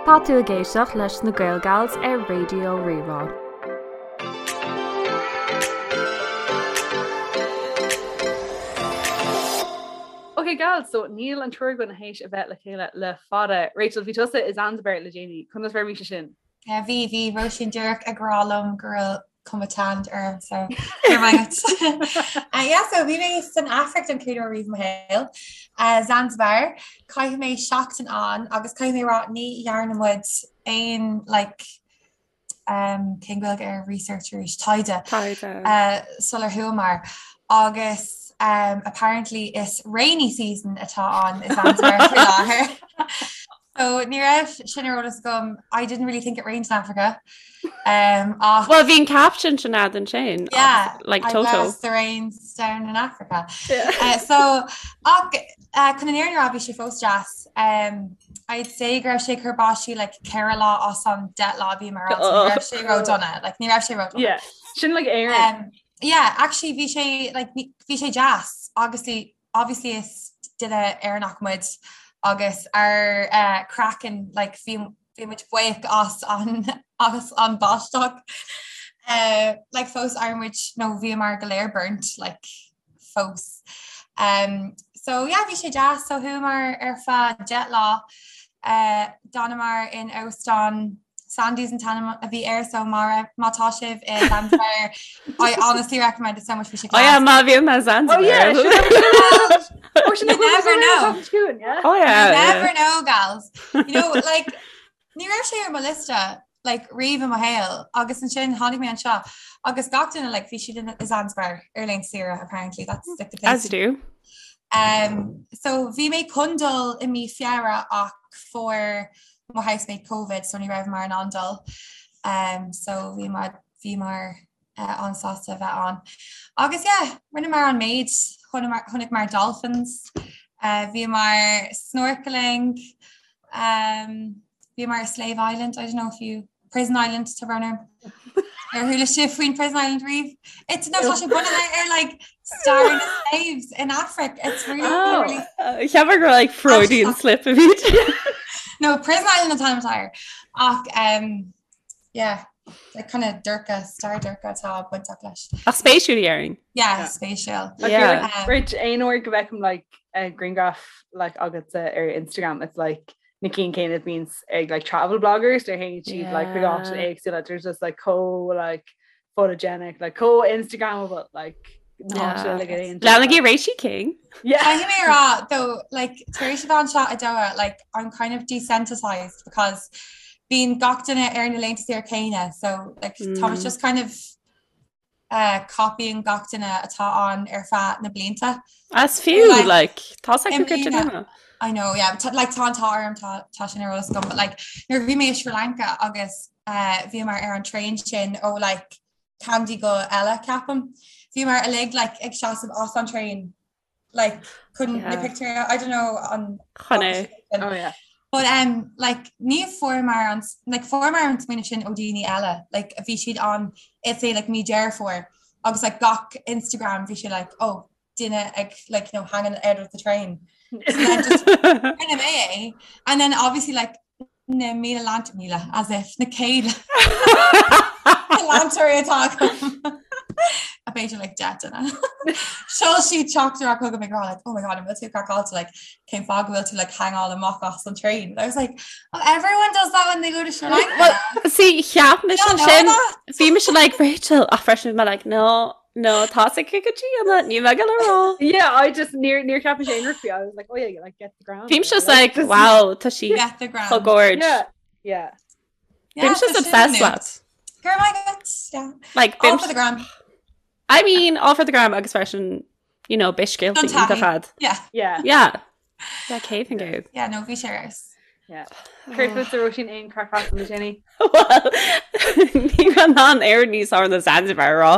Tá tú ag éisteacht leis na Gael Gals ar Raidió Rí-Rá. Ok gals, so níl an triúr againn théis a bheith le chéile le fada. Rachel, bhí tusa i Zanzibar le déanaí, conas mar a bhí sé sin? Yeah, bhí, bhí Róisín díreach ag rá liom go raibh cuma tanned orm so go raibh maith agat. Uh, yeah, so bhí mé san Afraic don chéad uair riamh i mo shaol. Uh, Zanzibar, chaith mé seachtain ann agus caithfidh mé rá ní dhearna muid aon like, um, cén Ghaeilge ar research arís taighde Taighde. uh, sular chuamar agus um, apparently is rainy season atá ann i Zanzibar faoi láthair. So ní raibh sin ar eolas agam. I didn't really think it rained in Africa. Um, ach Well, bhí an caption sin agat ansin. Yeah, like I Toto. bless the rains down in Africa. Yeah. Uh, so ach uh, chun an fhírinne a rá bhí sé fós deas. Um, I'd say go raibh sé ag cur báistí like 4 lá as an 10 lá a bhíomar ann, so ní raibh sé ró-dona, like ní raibh sé ró-dona. Yeah, sin like Éirinn. Um, yeah, actually bhí sé like ní- bhí sé deas. Obviously obviously is duine Éireannach muid agus ár eh, craiceann like bhí bhí muid buíoch as an as an báisteach. Eh, like fós ar muid nó bhíomar go léir burnt like fós. Um, so yeah, bhí sé deas so chuamar ar feadh 10 lá eh, d'fhanamar in óstán Sandy's an t-ainm a bhí air so má má tá sibh i Zanzibar I honestly recommend it so much bhí sé Oh yeah, class. má bhíonn mé Zanzibar. Oh yeah, You never know. Oh yeah. You yeah. never know, gals. You know, like, ní raibh sé ar mo liosta like, riamh i mo shaol agus ansin tháinig mé anseo agus gach duine like, bhí siad in i Zanzibar ar laethanta saoire apparently that's like the place As you do. Um, so bhí mé chun dul i mí Feabhra ach fuair mo housemate Covid so ní raibh mar in ann dul. Um, so bhí mar bhí mar uh, an-sásta a bheith ann. Agus yeah, rinneamar an méid chonaiceamar dolphins, uh, bhíomar snorkeling, um, bhíomar ar Slave Island, I don't know if you Prison Island tá brón orm. Ar chuala sibh faoin Prison Island riamh? It's no tá sé bunaithe ar like stair na slaves in Africa. It's really Oh. really Cheapfá gur like Freudian slip a bhí. No, Prison Island an t-ainm atá air. Ach um, yeah, like kind of dorcha, stair dorcha atá bainteach leis. Ach spéisiúil déarfainn. Yeah, Yeah. spéisiúil. Yeah. Um, Rich aon uair go bhfeicim like a grianghraf like agatsa ar Instagram it's like na cinn céanna a bhíonns ag like travel bloggers nuair a théann siad like chuig áiteanna Yeah. éagsúla there's just like chomh like photogenic like chomh Instagrammable like na Yeah. háiteanna like aon Leanaigí Rachy King. Yeah. Caithfidh mé a rá though like tar éis a bheith anseo i Doha like I'm kind of desensitized because bíonn gach duine ar na laethanta saoire céanna so like tá Mm. just kind of uh, copying gach duine atá ann ar feadh na blianta. As fiú Like, like tá i go mbliana- I know, yeah, but like tá an t-ádh orm tá tá sin ar eolas agam, but like nuair a bhí mé i Sri Lanka agus uh, bhíomar ar an train sin ó like Kandy go Ella ceapaim. Bhíomar uilig like ag seasamh as an train like chun na Yeah. pictiúir I don't know an Chun é. Oh yeah. But um, like ní fuaireamar an like fuaireamar an smaoineamh sin ó daoine eile like bhí siad ann it's a like mí Deireadh Fómhair agus like gach Instagram bhí sé like oh duine ag like you know hanging out of the train so then just rinne mé é and then obviously like na míle leant míle as if na céad leantóirí atá agam a b'fhéidir like 10 duine. Sheol siad teachtaireacht chugam ag rá like oh my god an bhfuil tú craiceáilte like cén fáth go bhfuil tú like hangáil amach as an train. I was like oh everyone does that when they go to Sri Lanka. Well, see cheap mise Yeah, no, sin that. bhí mise like Rachel ach freisin bhí mé like no no tá sé go dtí an ní me go rá. Yeah, I just níor níor cheap mé aon rud faoi. I was like, oh yeah, like get the gram. Bhí just like wow tá sí Get the gram. chomh gorge. Yeah, yeah. Yeah, Bím tá just sin obsessed nuacht. leat. Go raibh maith agat, yeah. Like All bím for the gram. I mean all for the gram agus freisin you know beidh scéalta Don taithí. iontach agat. Yeah. Yeah. Yeah. Yeah, céad faoin gcéad. Yeah, no, bhí sé ar fheabhas. Yeah. Céard fútsa Róisín aon craic le déanaí. Well, ní raibh an air níos fearr ná Zanzibar a rá.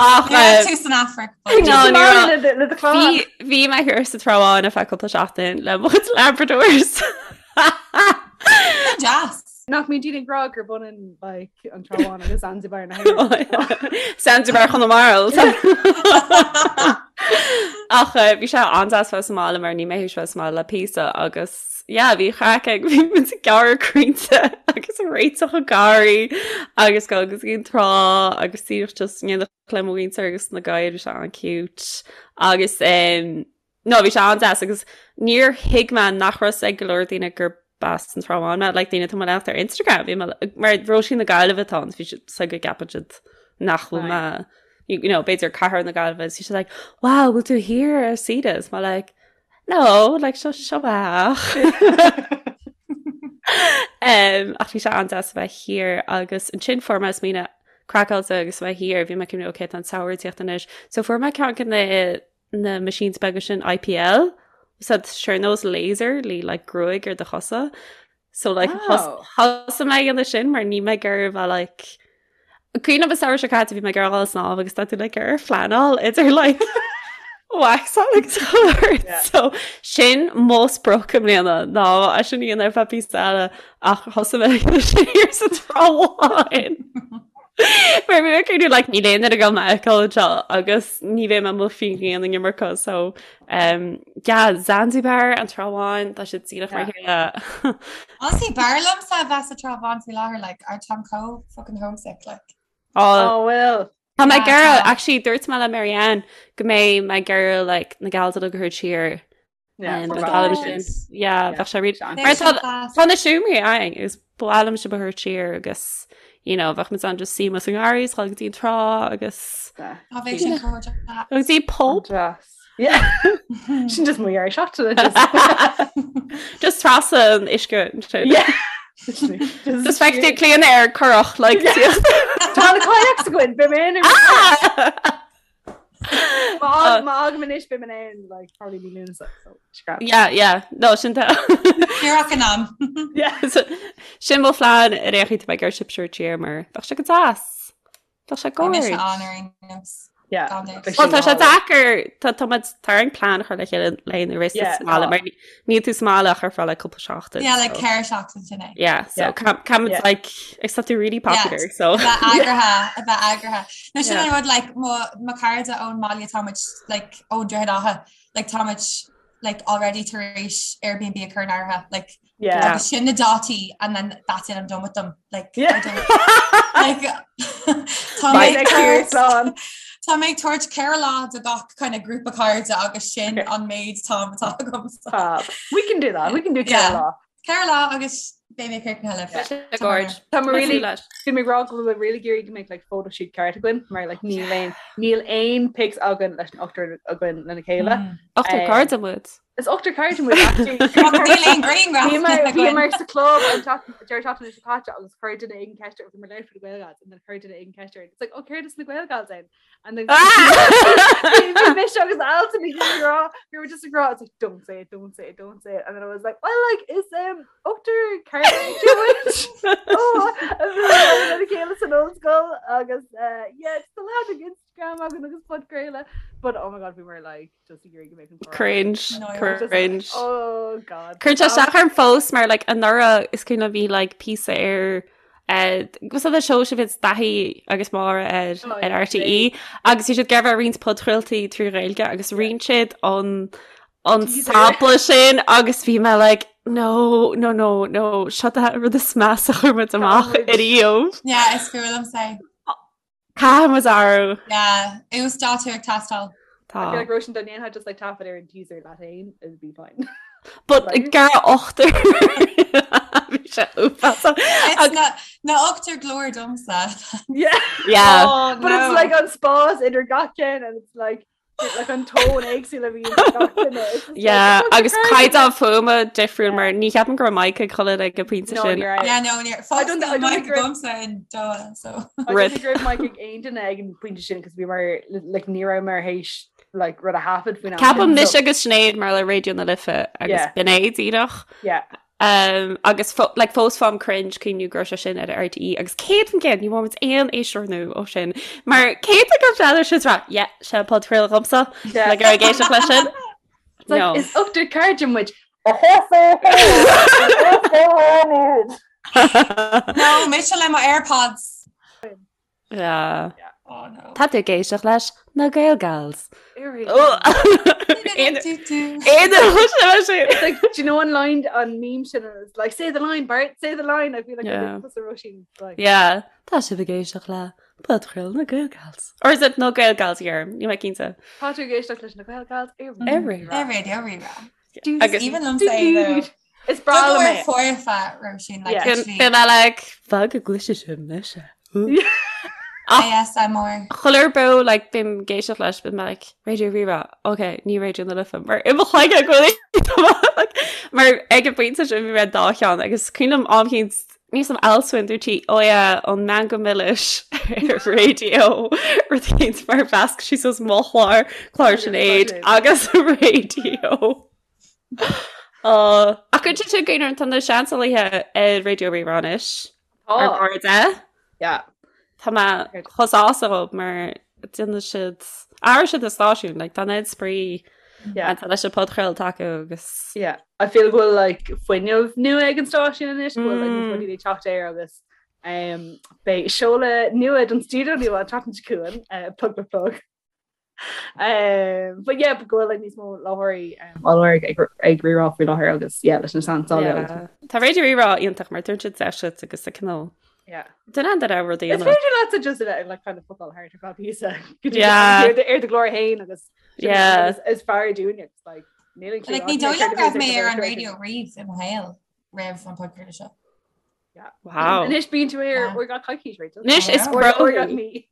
Ach Ní raibh eh, tú san Afraic. No, ní raibh. Le do chlann. Bhí bhí mé thiar sa Trá Bháin ar feadh cúpla seachtain le mo chuid Labradors. Deas. Nach mbíonn daoine ag rá gurb ionann like an Trá Bháin agus Zanzibar na hÉireann. Zanzibar Chonamara. Ach eh, bhí sé an-deas bheith sa mbaile mar níl mé théis bheith sa mbaile le píosa agus yeah, bhí craic ag bhí muid ag gearradh crainnte agus ag réiteach an garraí agus go agus an trá agus díreach just in éineacht le mo mhuintir agus na gadhair bhí sé an-cute agus um, No, bhí sé an-deas agus níor thuig mé nach raibh fhios ag go leor daoine gur as an Trá Bháin mé, like daoine atá mo leanacht ar Instagram, bhí mé mar Róisín na Gaillimhe atá ann, bhí siad so go gceapann siad nach bhfuil mé, you know, b'fhéidir cathair na Gaillimhe, bhí siad like, wow, bhfuil tú thiar ar saoire? Is mé like, no, like seo seo mé. Um, ach bhí sé an-deas a bheith thiar agus ansin fuair mé smaoineamh craiceáilte agus a bheith thiar, bhí mé ag cuimhneamh, okay, tá an samhradh ag tíocht anois. So fuair mé ceann de na na machines beaga sin IPL so sé ar nós laser le like gruaig ar do chosa so like oh. thosaigh mé ag déanamh sin mar níl mé ag iarraidh bheith like Cuimhin liom an samhradh seo caite bhí mé ag iarraidh dul ag snámh agus tá tú like ar phleanáil idir like wax agus chuir yeah. so sin mo sprioc i mbliana ná é sin a dhéanamh ar feadh píosa eile ach thosaigh mé ag déanamh sin thiar sa Trá Bháin. Mar bhí mé ag cuimhneamh like níl aon duine ag dul mé a fheiceáil anseo agus ní bheidh mé amuigh faoin ghrian an iomarca so um, yeah, Zanzibar an Trá Bháin tá siad díreach mar chéile. Honestly, b'fhearr liomsa a bheith sa Trá Bháin faoi láthair like I táim chomh fucking homesick like. Oh, Oh well. Tá mé Yeah, ag iarraidh tá. actually dúirt mé le Marianne go mbeidh mé ag iarraidh like na gals uilig a thabhairt siar bheadh sé really Tá na seomraí againn is ba mhaith liom sibh a thabhairt siar agus you know, bheadh muid ann just suí sa ngarraí is dul go dtí an trá agus go dtí pub. Sin just mo dhear seachtaine Just trasna an uisce ansin. Just feicfidh tú Clíona ar curach like Tá na kayaks againn, beidh mé in ar Má fhágaim anois beidh mé in like probably mí Lúnasa so scrap. Yeah, yeah. No, sin tá. Díreach in am. Yeah, so, sin mo phlean ar aon chaoi tá mé ag iarraidh sibh a thabhairt siar mar bheadh sé go deas. Bheadh sé Bhí mise gorge. ann ar aon nós. Yeah. Gan dabht. Bheadh Well, sin tá sé go hálainn. deacair, tá tá muid tá orainn plean a chur le chéile le na rest Yeah, sa mbaile tá. mar níl tú sa mbaile ach ar feadh like cúpla seachtain. Yeah, like so. ceithre seachtain sin é. Yeah, so Yeah. ca- ca- Yeah. like except you're really popular, Yeah, so a bheith eagraithe, a bheith eagraithe. No sin Yeah. an rud like mo mo chairde ón mbaile tá muid like ón Droichead Átha like tá muid like already tar éis Airbnb a chur in áirithe like Yeah. agus sin na dátaí and then that's it I'm done with them like Yeah. I don't like tá mé Right. ag Next year, tabhairt- slán. Tá mé ag tabhairt 4 lá do gach kind of grúpa cairde agus sin Okay. an méid am atá agam. Fab. We can do that. We can do Yeah. ceithre lá. 4 lá agus beidh mé críochnaithe libh. Tá sé gorge. Tá mé really leis. Bhí mé ag rá go bhfuil mé really ag iarraidh go mbeadh like photoshoot ceart againn mar like níl aon níl aon pics againn leis an ochtar againn lena chéile. Mm. Ochtar Um, cairde muid. Is ochtar cairde muid actually. Ach níl aon grianghraf Bhí mar bhí againn. mar sa club an deireadh seachtaine seo caite agus chuir duine éigin ceist ar bhí mar leir for the Gael Gals and then chuir duine éigin ceist ar it's like oh céard is na Gael Gals ann and then bhí mise agus Alton ag rá we were just ag rá it's like don't say it don't say it don't say it and then I was like well like is um ochtar cairde muid oh and then bhí chéile san ollscoil agus uh, yeah it's the lad ag Instagram againn agus podchraoladh but oh my god we were like just ag iarraidh go mbeadh an comhrá. Cringe, No, I was just like, cringe. Oh god. Cuireann sé isteach orm fós mar like anuraidh is cuimhin liom bhí like píosa ar eh, was that the show sin bhíonn Daithí agus Máire ar Oh, ar yeah, RTÉ agus bhí siad ag iarraidh roinnt podchraoltaí trí Ghaeilge agus roinn siad an an Teaser. sampla sin agus bhí mé like no no no no seo an rud is measa a chuir muid amach muid. ariamh. Yeah, is fuath liom é. Caithfidh muid athrú. Yeah, uasdátú ag teastáil. Tá. I feel like Róisín dá ndéanfá just like taifead ar an teaser leat féin, it'd be fine. But gar ochtar. Bhí sé uafásach. It's na na ochtar glór domsa. Yeah. Yeah. Oh, But it's like an spás idir gach ceann and it's like like an tone éagsúil a bhí gach duine. It's just like, Yeah, it's agus crazy. caighdeán fuaime difriúil mar ní cheapaim go raibh mic ag chuile ag an bpointe No, sin. ní raibh. Yeah, no, ní I don't- I don't mic think we're- agamsa in Doha, so. I don't Rip. think go raibh mic ag aon duine ag an pointe sin cos bhí mar like ní raibh mar théis like rud a thaifead faoin am Ceapaim sin, mise so- agus Sinéad mar le Raidió na Life agus Yeah. b'in é díreach. Yeah. Um, agus fo like, fós faighim cringe cuimhniú go raibh sé sin ar RTÉ agus 100% ní bhfuair muid aon éisteoir nua ó sin mar cén go bhfeadar sin rá yeah, sé an podchraoladh dhomsa Yeah. le gur ag éisteacht leis sin. It's like, No. is ochtar cairde muid. No, mise le mo AirPods. Yeah. Yeah. Oh no. Tá tú ag éisteacht leis na Gael Gals. It's like, do you know an line an meme sin is like say the line Bart say the line I feel like Yeah. tusa Róisín like Yeah, tá sibh ag éisteacht le podchraoladh na Gael Gals. Or is it na Gael Gals here? Níl mé cinnte. Tá tú ag éisteacht leis na Gael Gals ar Ar Raidió. Ar Raidió Rí-Rá. Agus Even liom say Is breá liom é. foirfe Róisín like Yeah. literally Bím like fág go gcloisfidh sibh mise. ASMR. Chuile uair like bím ag éisteacht leis bím like Raidió Rí-Rá, ok, ní Raidió na Life mar i mo chloigeann go bhfuil like, mar ag an bpointe sin bhí mé dá cheann agus cuimhin liom am éicint níos am Alswyn dúirt sí ó yeah, an Meangadh Milis ar raidió rud éicint mar mheasc sí suas mo chlár, clár Sinéad agus raidió. Ach go dtí sin go tá na seansálaithe ar Raidió Rí-Rá anois. Ar Tá. cairde. Yeah. Tá mé chomh sásta dhób mar déanann siad athraigh siad an stáisiún, like, tá an oiread spraoi Yeah. tá leis an podchraolta acu agus Yeah. I feel go bhfuil like fuinneamh nua ag an stáisiún anois, go bhfuil like níos mó Mm. daoine ag teacht air agus um, beidh seoladh nua don stiúideo nua an tseachtain seo chugainn, uh, plug plug plug. Um, but yeah, go bhfuil like níos mó láithreoirí um, á lorg ag ag Rí-Rá faoi láthair agus yeah, leis na seansálaithe agus Yeah. Tá Raidió Rí-Rá iontach mar tugann siad deis duit agus a cineál yeah. Duine an raibh rudaí Is féidir leat just a bheith like kind of football thart ar feadh píosa go dtí Yeah. ar do- ar do ghlór féin agus sin Yeah. is- is fearr dúinne it's like níl an Like ní dóigh liom go raibh mé ar an raidió riamh i mo shaol roimh an podchraoladh seo. Wow. Anois bíonn tú ar Yeah. uair gach coicís Rachel. Anois is Uair- bro. Uair gach mí.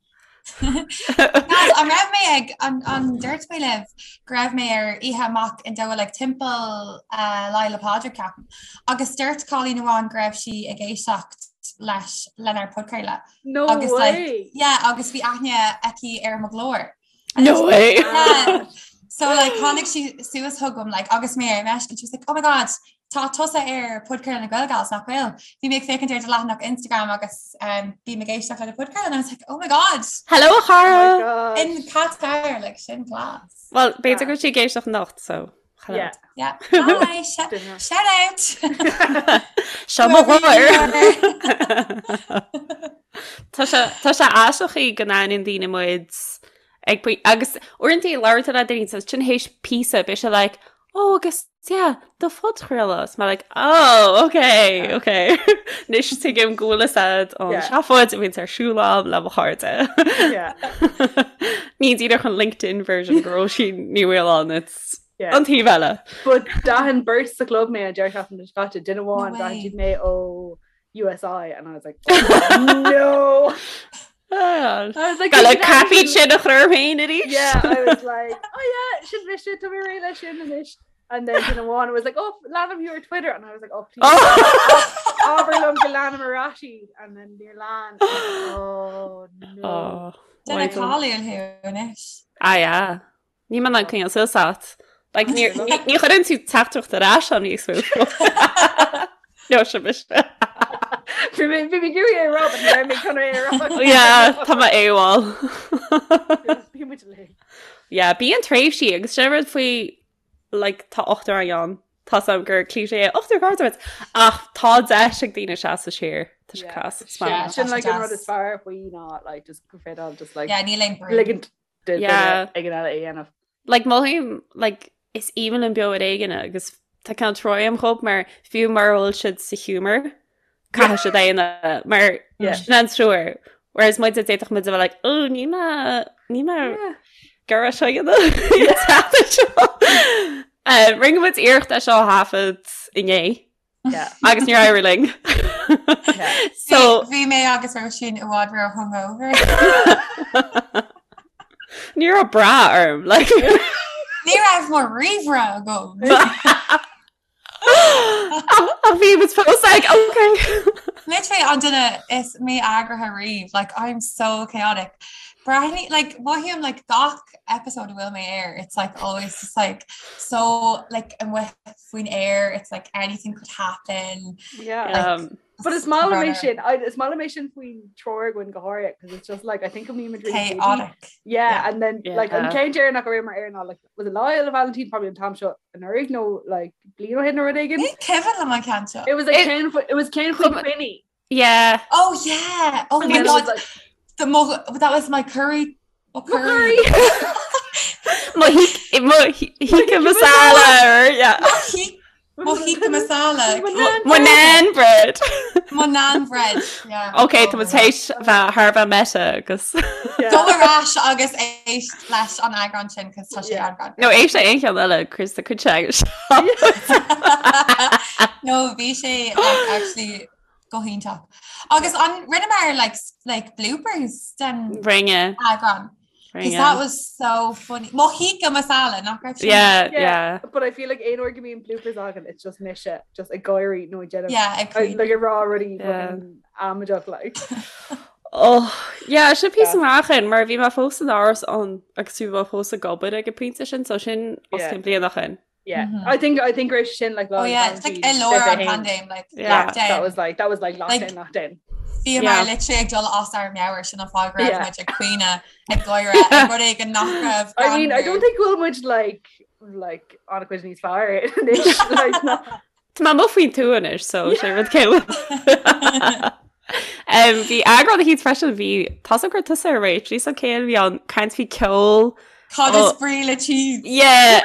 Guys, an raibh mé ag an an dúirt mé libh go raibh mé ar oíche amach in Doha like timpeall uh, Lá Fhéile Pádraig ceapaim. Agus dúirt cailín amháin go raibh sí ag éisteacht leis lenár podchraoladh. No Agus, like, way. Yeah, agus bhí aithne aici ar mo ghlór. No way. Yeah. So like tháinig sí suas chugam like agus mé ar meisce and she was like, oh my god, tá tusa ar podchraoladh na Gael Gals nach bhfuil. Bhí mé ag féachaint ar do leathanach Instagram agus um, bím ag éisteacht le do podchraoladh and I was like, oh my god, Hello Oh my chara. gosh. in Qatar, like sin class. Well, b'fhéidir go bhfuil sí ag éisteacht anocht, so hello. Yeah. Yeah. Hi, sh shout out. Seo mo Whoever you ghlór. are. Tá sé tá sé aisteach go n-aithníonn daoine muid ag poi- agus uaireanta labhraíonn tú le daoine so sin théis píosa beidh sé like oh agus yeah do phodchraoladh is mé like oh okay Yeah. okay Anois tuigim go bhfuil fhios a'd an Yeah. seafóid a bhíonns ar siúl a'm le mo chairde. Yeah. Ní díreach an LinkedIn version de Róisín Ní Mhaoláin it's Yeah. an taobh eile. But d'aithin beirt sa chlub mé an deireadh seachtaine seo caite duine amháin No d'aithin way. siad mé ó USI and I was like oh, no Ah, I was like Gal "Did you crappy actually-" sin a chur féin arís. Yeah, I was like, oh yeah, sin mise tá mé réidh leis sin anois. And then duine amháin was like, oh, leanaim thú ar Twitter. And I was like, oh, please. Oh. Abair liom go leanaim ar ais iad. And then níor lean. Oh, no. Oh, Duine why don't- cáiliúil thú anois. Ah, yeah. Níl mé in ann coinneáil suas ort. Like, ní ní- ní chuireann tú teachtaireacht ar ais agam níos mó. No, sin mise. Bhí mé bhí mé ag iarraidh é a rá, but ní raibh mé chun é a rá. Yeah, tá mé AWOL. Bhí muid uilig. Yeah, bíonn tréimhsí agus sin rud faoi like, tá ochtar againn ann. Tá a fhios a'm gur cliché é ochtar cairde muid. Ach tá deis ag daoine seasamh siar. Tá sé Yeah. class. It's Yeah, mad. Sin like an Deas. rud is fearr faoi ná like just go féidir just like Yeah, níl aon brú. ligint do duine Yeah. éigin eile é a dhéanamh. Like mothaím like is aoibhinn liom Beo ar Éigean agus tá cineál trua a'm dhób mar fiú mura bhfuil siad sa humour caithfidh siad é a dhéanamh mar Yeah. sin an treoir. Whereas muid d'fhéadfadh muid a bheith like oh ní mé ní mé Yeah. gur seo dhéanamh. Eh, Rinne muid iarracht é seo a thaifead inné Yeah. agus níor éirigh linn. Yeah. So Bhí mé agus Róisín i bhfad ró hungover. ní raibh brath orm like Ní raibh mo ríomhaire agam. Ach bhí muid fós like okay. Literally an duine is mí-eagraithe riamh, like I'm so chaotic. Breathnaigh like mothaím like gach episode a bhfuil mé air, it's like always just like so like amuigh faoin aer, it's like anything could happen. Yeah. Like, But is maith liom é runner. sin I- is maith liom é sin faoin triúr againn go háirithe because it's just like I think go mbímid really busy. Chaotic. Yeah, Yeah. and then like an Yeah. ceann deireanach a raibh mé air ná like was it Lá Fhéile Vailintín probably an t-am seo anuraidh nó like bliain ó shin nó rud éigin. Ní cuimhin liom an ceann seo. It was like It- ceann it was ceann faoi Chum- Quinny. Yeah. Oh yeah! Oh And my then it was god, like. The mo that was my curry mo curry. Mo tikka masala or yeah. Mo tikka masala. Mo naan bread. Mo naan bread. Yeah. Ok, tá muid théis bheith thar a bheith meta agus. Go ar ais agus éist leis an eagrán sin cos tá sé an-ghreannmhar. No éist le aon cheann eile Chris a cuid agus. No bhí sé like, actually go hiontach. Agus an rinneamar like, like bloopers den Rinne. eagrán. Because that was so funny. Mo tikka masala nach raibh sin? Yeah, yeah. But I feel like aon uair go mbíonn bloopers againn, it's just mise just ag gáirí nó ag déanamh Yeah, ag I- like ag rá rudaí fucking amaideach like. Oh, yeah, sin píosa amach in mar bhí mé fós in áras an agus bhí mé fós ag obair ag an pointe sin, so sin os Yeah. cionn bliain ó shin. Yeah. Mhm. I think I think raibh sin like Oh yeah, it's like i lár an paindéim like Yeah. lockdown. That was like that was like lockdown Like- lockdown. Bhíomar Yeah. literally ag dul as ár meabhair sin an fáth go raibh Yeah. muid ag caoineadh ag gáire ag rud éigin nach raibh I mean, I don't greannmhar. think go bhfuil muid like like an-chuid níos fearr anois like no. Tá mé amuigh faoin tuath anois, so sé rud céile. Um, bhí eagrán eicínt freisin bhí tá a gur tusa ar réit, bhí céil bhí an caint faoi ceol. Cad is Oh. brí le cheese? Yeah.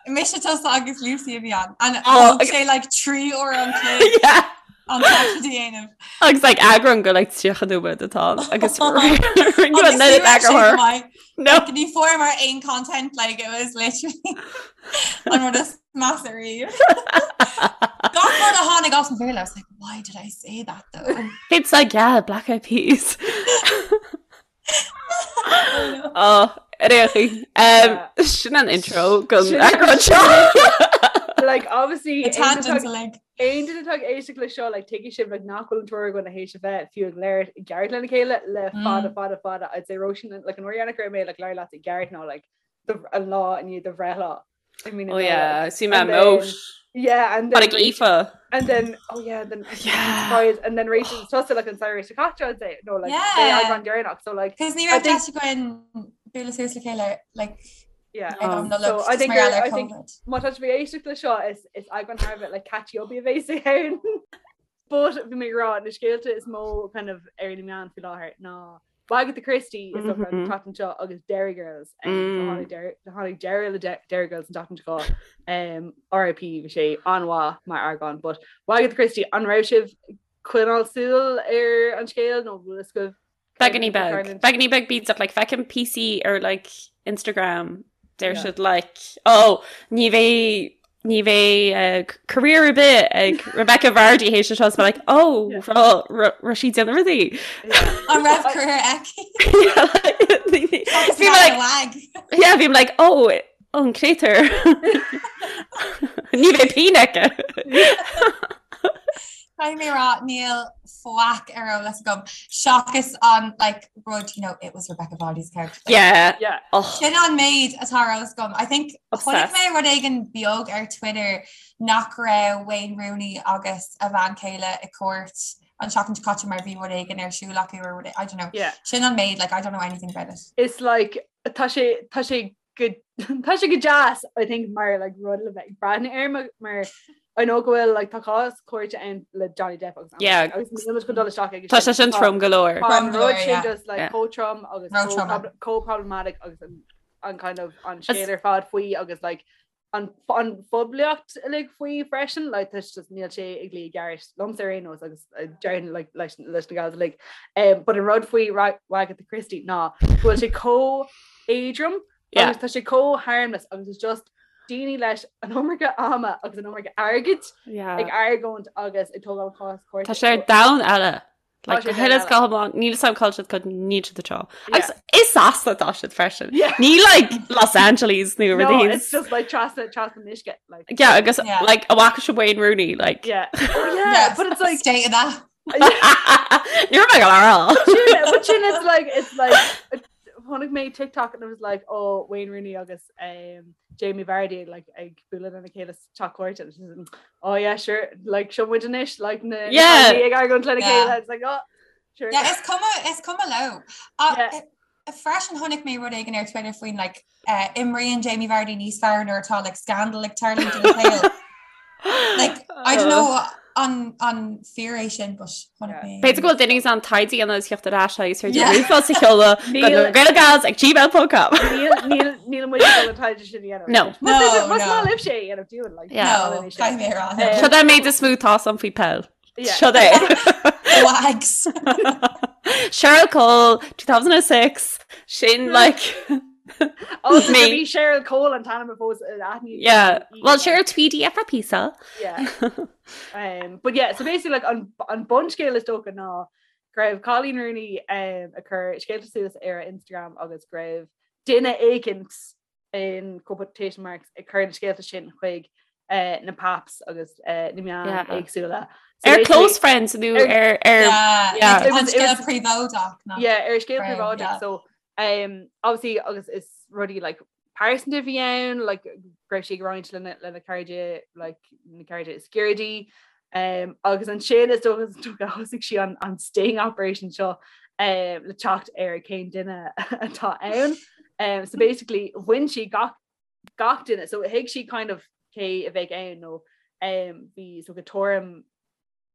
Mise tusa agus Lucy a bhí ann. And Oh, thóg sé like 3 uair an chloig Yeah. an taifead a dhéanamh. Agus like eagrán go like 30 nóiméad atá ann agus Agus rinne ní raibh sé go eagarthóir. maith. No. Like, ní fuaireamar aon content like it was literally an rud is measa riamh. Gach rud a tháinig as mo bhéal, I was like, why did I say that though? It's like yeah, Black Eyed Peas. Oh, réchaí. Um, sin an intro go Sin- eagrán seo. Like obviously The tangents are like aon duine atá ag éisteacht le seo like tuigfidh sibh like nach bhfuil an triúr againn théis a bheith fiú ag labhairt i gceart lena chéile le fada fada fada I'd say Róisín like an uair dheireanach go raibh mé like labhairt leat i gceart ná like the an lá i ndiaidh do bhreithlá. I mean, Oh yeah, see my And then- moat. Yeah, and then Tháinig Aoife. and then oh yeah, then Yeah. surprise, and then Rachel tusa like an samhradh seo caite I'd say no like Yeah. eagrán deireanach so like Cos ní I raibh think- deis againn bualadh suas le chéile like yeah. ag Oh. an Nollaig So I just think mar gheall I ar think- COVID. Má tá sibh ag éisteacht le seo is is eagrán thar a bheith like catchy up a bheas ann. But bhí mé ag rá na scéalta is mó kind of ar na meáin faoi láthair ná Wagatha Christie is mm -hmm. an tseachtain seo agus Derry Girls um, mm. tháinig deireadh le Derry Girls an tseachtain seo um, RIP bhí sé an-mhaith mar eagrán, but Wagatha Christie an raibh sibh ag coinneáil súil ar an scéal nó bhfuil a fhios agaibh Beagáinín beag. Beagáinín beag bídeach like feicim píosaí ar like Instagram deir Yeah. siad like oh ní bheidh ní bheidh eh, career ar bith ag Rebecca Vardy théis seo is like oh Yeah. raibh sí ag déanamh rudaí. An raibh career aici? Bhí mé like lag. yeah bhí mé like oh an créatúr. Ní bheidh pingin aici. Caithfidh mé rá níl faic ar eolas agam seachas an like rud you know it was Rebecca Vardy's character. Yeah. Yeah. Oh, Sin an méid atá ar eolas agam. I think chonaic Obsessed. mé rud éigin beag ar Twitter nach raibh Wayne Rooney agus a bhean chéile i cúirt an seachtain seo caite mar bhí rud éigin ar siúl acu or rud I don't know. Yeah. Sin an méid like I don't know anything about it. It's like tá sé tá sé go tá sé go deas I think mar like rud le bheith ag breathnú air mar mar I know go bhfuil like tá cás cúirte ann le Johnny Depp agus Amber Yeah. Heard agus níl muid chun dul isteach ag Tá sé sin trom go leor. Tá an Trom go leor, rud sin yeah. just like Yeah. chomh trom agus Ró chomh trom. prob- chomh problematic agus an an kind of an scéal ar fad faoi agus like an an phoiblíocht uilig faoi freisin like tá just níl sé ag luí i gceart liomsa ar aon nós agus uh, déarfainn like leis leis na gals uilig. Um, but an rud faoi Ra- Wagatha Christie ná go bhfuil sé chomh éadrom Yeah. agus tá sé chomh harmless agus it's just daoine leis an iomarca ama agus an iomarca airgid Yeah. ag argóint agus ag tógáil cás cúirte. Tá sé ar domhan eile. Like, Tá sé go huile is domhan go hiomlán, níl a fhios agam cá bhfuil siad cos níl siad anseo. Yeah. Agus i Sasana atá siad freisin. Yeah. Ní like Los Angeles nó No, rudaí. it's just like trasna trasna an uisce like Yeah, agus Yeah. like an bhfaca sibh Wayne Rooney like. yeah. Oh yeah, but it's like state of that. Ní raibh mé ag rá. Sin- but sin it's like it's like chonaic mé TikTok and it was like oh Wayne Rooney agus um, Jamie Vardy like ag bualadh lena chéile sa teach cúirte and she's like, oh yeah sure like seo muid anois like na na Yeah. cailíní ag argóint lena Yeah. chéile it's like oh sure Yeah, is cuma is cuma leo. Uh, Yeah. Freisin chonaic mé rud éigin ar Twitter faoin like uh, imríonn Jamie Vardy níos fearr nuair atá like scandal ag tarlú ina shaol. Like I don't know Uh. an an fíor é sin but chonaic mé. B'fhéidir go bhfuil duine in ann taighde a dhéanamh is theacht ar ais agus féidir Yeah. ríomhphost a sheoladh go Níl- na Gaelgals ag gmail.com. Níl níl níl muid ag dul an taighde sin a dhéanamh. No. Más No, más no. maith libh sé a dhéanamh dúinn like. Yeah. No, caithfidh mé a rá. Eh, Seo é an méid is mó atá agam faoi peil. Yeah. Seo é. Wags. Cheryl Cole 2006 sin like Oh, Me. bhí Cheryl Cole an t-ainm a fós aithní. yeah well Cheryl Tweedy for pizza Yeah. Um, but yeah, so basically like an, an bunscéal is dócha ná go raibh Coleen Rooney um, ag cur scéalta suas ar a Instagram agus go raibh duine éicint in quotation marks ag cur na scéalta sin chuig uh, na paps agus uh, na meáin Yeah. éagsúla. So ar basically- close friends nó Ar- ar ar Yeah, yeah. like, It an was- it scéal was- príobháideach ná. yeah, ar scéal Right, príobháideach yeah. so um, obviously agus is rudaí like pearsanta a bhí ann like go raibh sí ag roinnt lena lena cairde like na cairde is gaire di um, agus ansin is dócha is dócha thosaigh sí an an sting operation seo um, le teacht ar cén duine atá ann. Um, so basically bhain sí gach gach duine so thuig sí kind of cé a bheadh ann nó um, bhí so go tuairim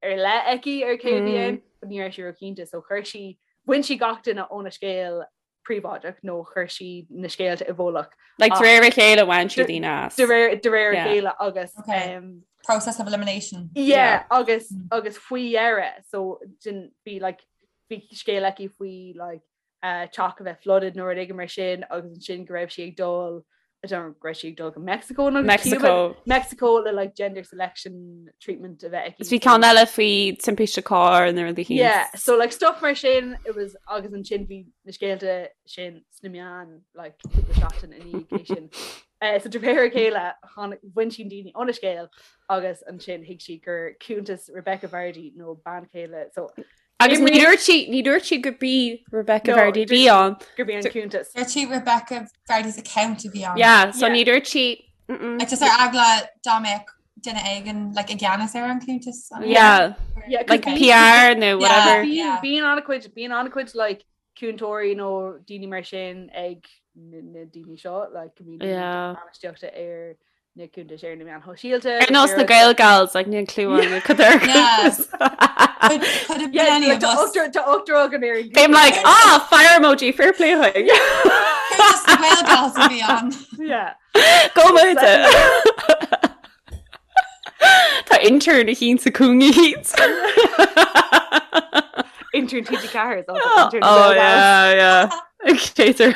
ar leith aici ar cé a bhí ann, but ní raibh sí róchinnte, so chuir sí, bhain sí gach duine óna scéal príobháideach nó chuir sí na scéalta i bhfolach. Like de réir a chéile bhain sí daoine as. De réir de réir a Yeah. chéile agus Okay. um, Process of elimination. yeah, agus Mm. agus faoi dheireadh so din bhí like bhí scéal aici faoi like uh, teach a bheith flooded nó rud éigin mar sin agus ansin go raibh sí ag dul I don't know, go raibh sí ag dul go Mexico nó go Mexico. Cuba, Mexico le like gender selection treatment a bheith aici. Is bhí ceann eile faoi timpiste cairr nó rudaí Yeah, so like stuff mar sin it was agus ansin bhí na scéalta sin sna meáin like cúpla seachtain i ndiaidh sin. Uh, so de réir a chéile tháinig- bhain sí daoine óna scéal agus ansin thuig sí gur cuntas Rebecca Vardy nó bean chéile so Agus ní dúirt sí ní dúirt sí gurb í Rebecca No, Vardy dúirt bhí ann. gurb í an cuntas. Dúirt sí Rebecca Vardy's account a bhí ann. Yeah, so Yeah. ní dúirt sí mm-mm. Like just ar eagla dá mbeadh duine éigin like i gceannas ar an cuntas. an- Yeah, Yeah, 'cause like bhí- PR nó whatever. Bíonn Yeah. bíonn an-chuid bíonn an-chuid like cúntóirí nó daoine mar sin ag na na daoine seo like go mbíonn Yeah. bainistíochta ar na cuntais ar na meáin shóisialta. Ar nós na Gaelgals like níl clue an cad ar Yeah. Could, could have been Yeah, any like, of tá us. ochtar tá ochtar againn ar an Bím like ah fire emoji fair play chuig. Cuntas na Gaelgals a bhí ann. Yeah. Go maith. Tá intern a hín sa cúnga hín. Intern TG4 is also Oh intern Gaelgals. yeah, yeah. Chaser.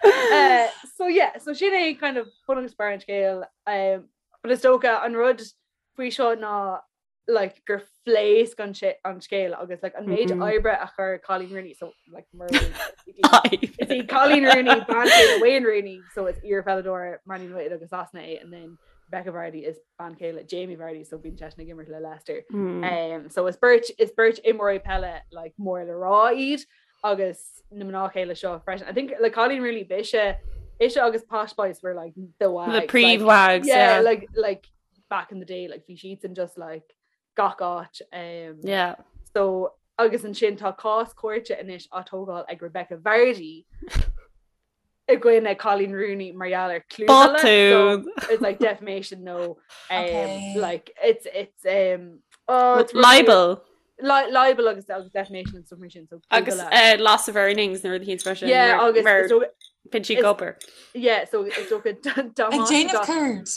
Uh, so yeah, so sin é kind of bun agus barr an scéil um, but is dócha an rud faoi seo ná like gur phléasc an sé- an scéal agus like an méid Mhm. oibre a chuir Coleen Rooney so like mar Is í Coleen Rooney bean chéile Wayne Rooney so is iarpheileadóir Man United agus Sasana é and then Rebecca Vardy is bean chéile Jamie Vardy so bíonn seisean ag imirt le Leicester. Mm. Um, so is beirt is beirt imreoirí peile like mór le rá iad agus na mná chéile seo freisin. I think like Coleen Rooney b'ise ise agus Posh Spice were like the wags. The like, príomh-wags, yeah, yeah. like like back in the day like bhí siadsan just like gach áit. Um, Yeah. So agus ansin tá cás cúirte anois á tógáil ag Rebecca Vardy i gcoinne Coleen Rooney mar gheall ar clúmhilleadh. So Botún. it's like defamation no um, Okay. like it's it's um oh it's really- Libel. Li libel agus agus defamation and stuff mar sin so Agus clúmhilleadh. uh, loss of earnings nuair a hín freisin. yeah agus mar is dócha- bíonn sí is- gobar. yeah so is dócha Ag déanamh céard.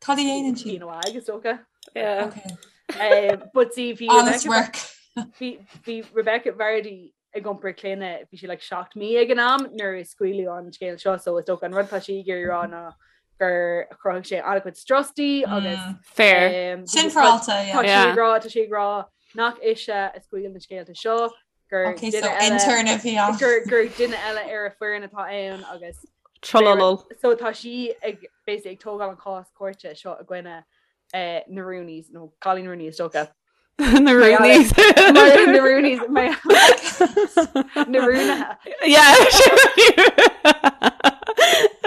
Cad a dhéanann sí? Bíonn agus dócha Yeah. Okay. Um, but see bhí Honest Rebecca work. bhí bhí Rebecca Vardy ag iompar clainne bhí sí like 7 mí ag an am nuair a scaoileadh an scéal seo so is dócha an rud atá sí ag iarraidh rá ná gur chruthaigh sé an-chuid strus di agus Mm. Fair. um, Sin tá fearáilte, tá yeah. sí Yeah. ag rá tá sí ag rá nach ise a scaoil na scéalta seo gur Okay, so duine eile intern a bhí ann. gur gur duine eile ar a foireann atá ann agus Trololol. so tá sí ag basically ag tógáil an cás cúirte seo i gcoinne eh, na Rooneys nó Coleen Rooney is dócha Na Rooneys. Mar- na Rooneys mar- na Rúnaithe Yeah.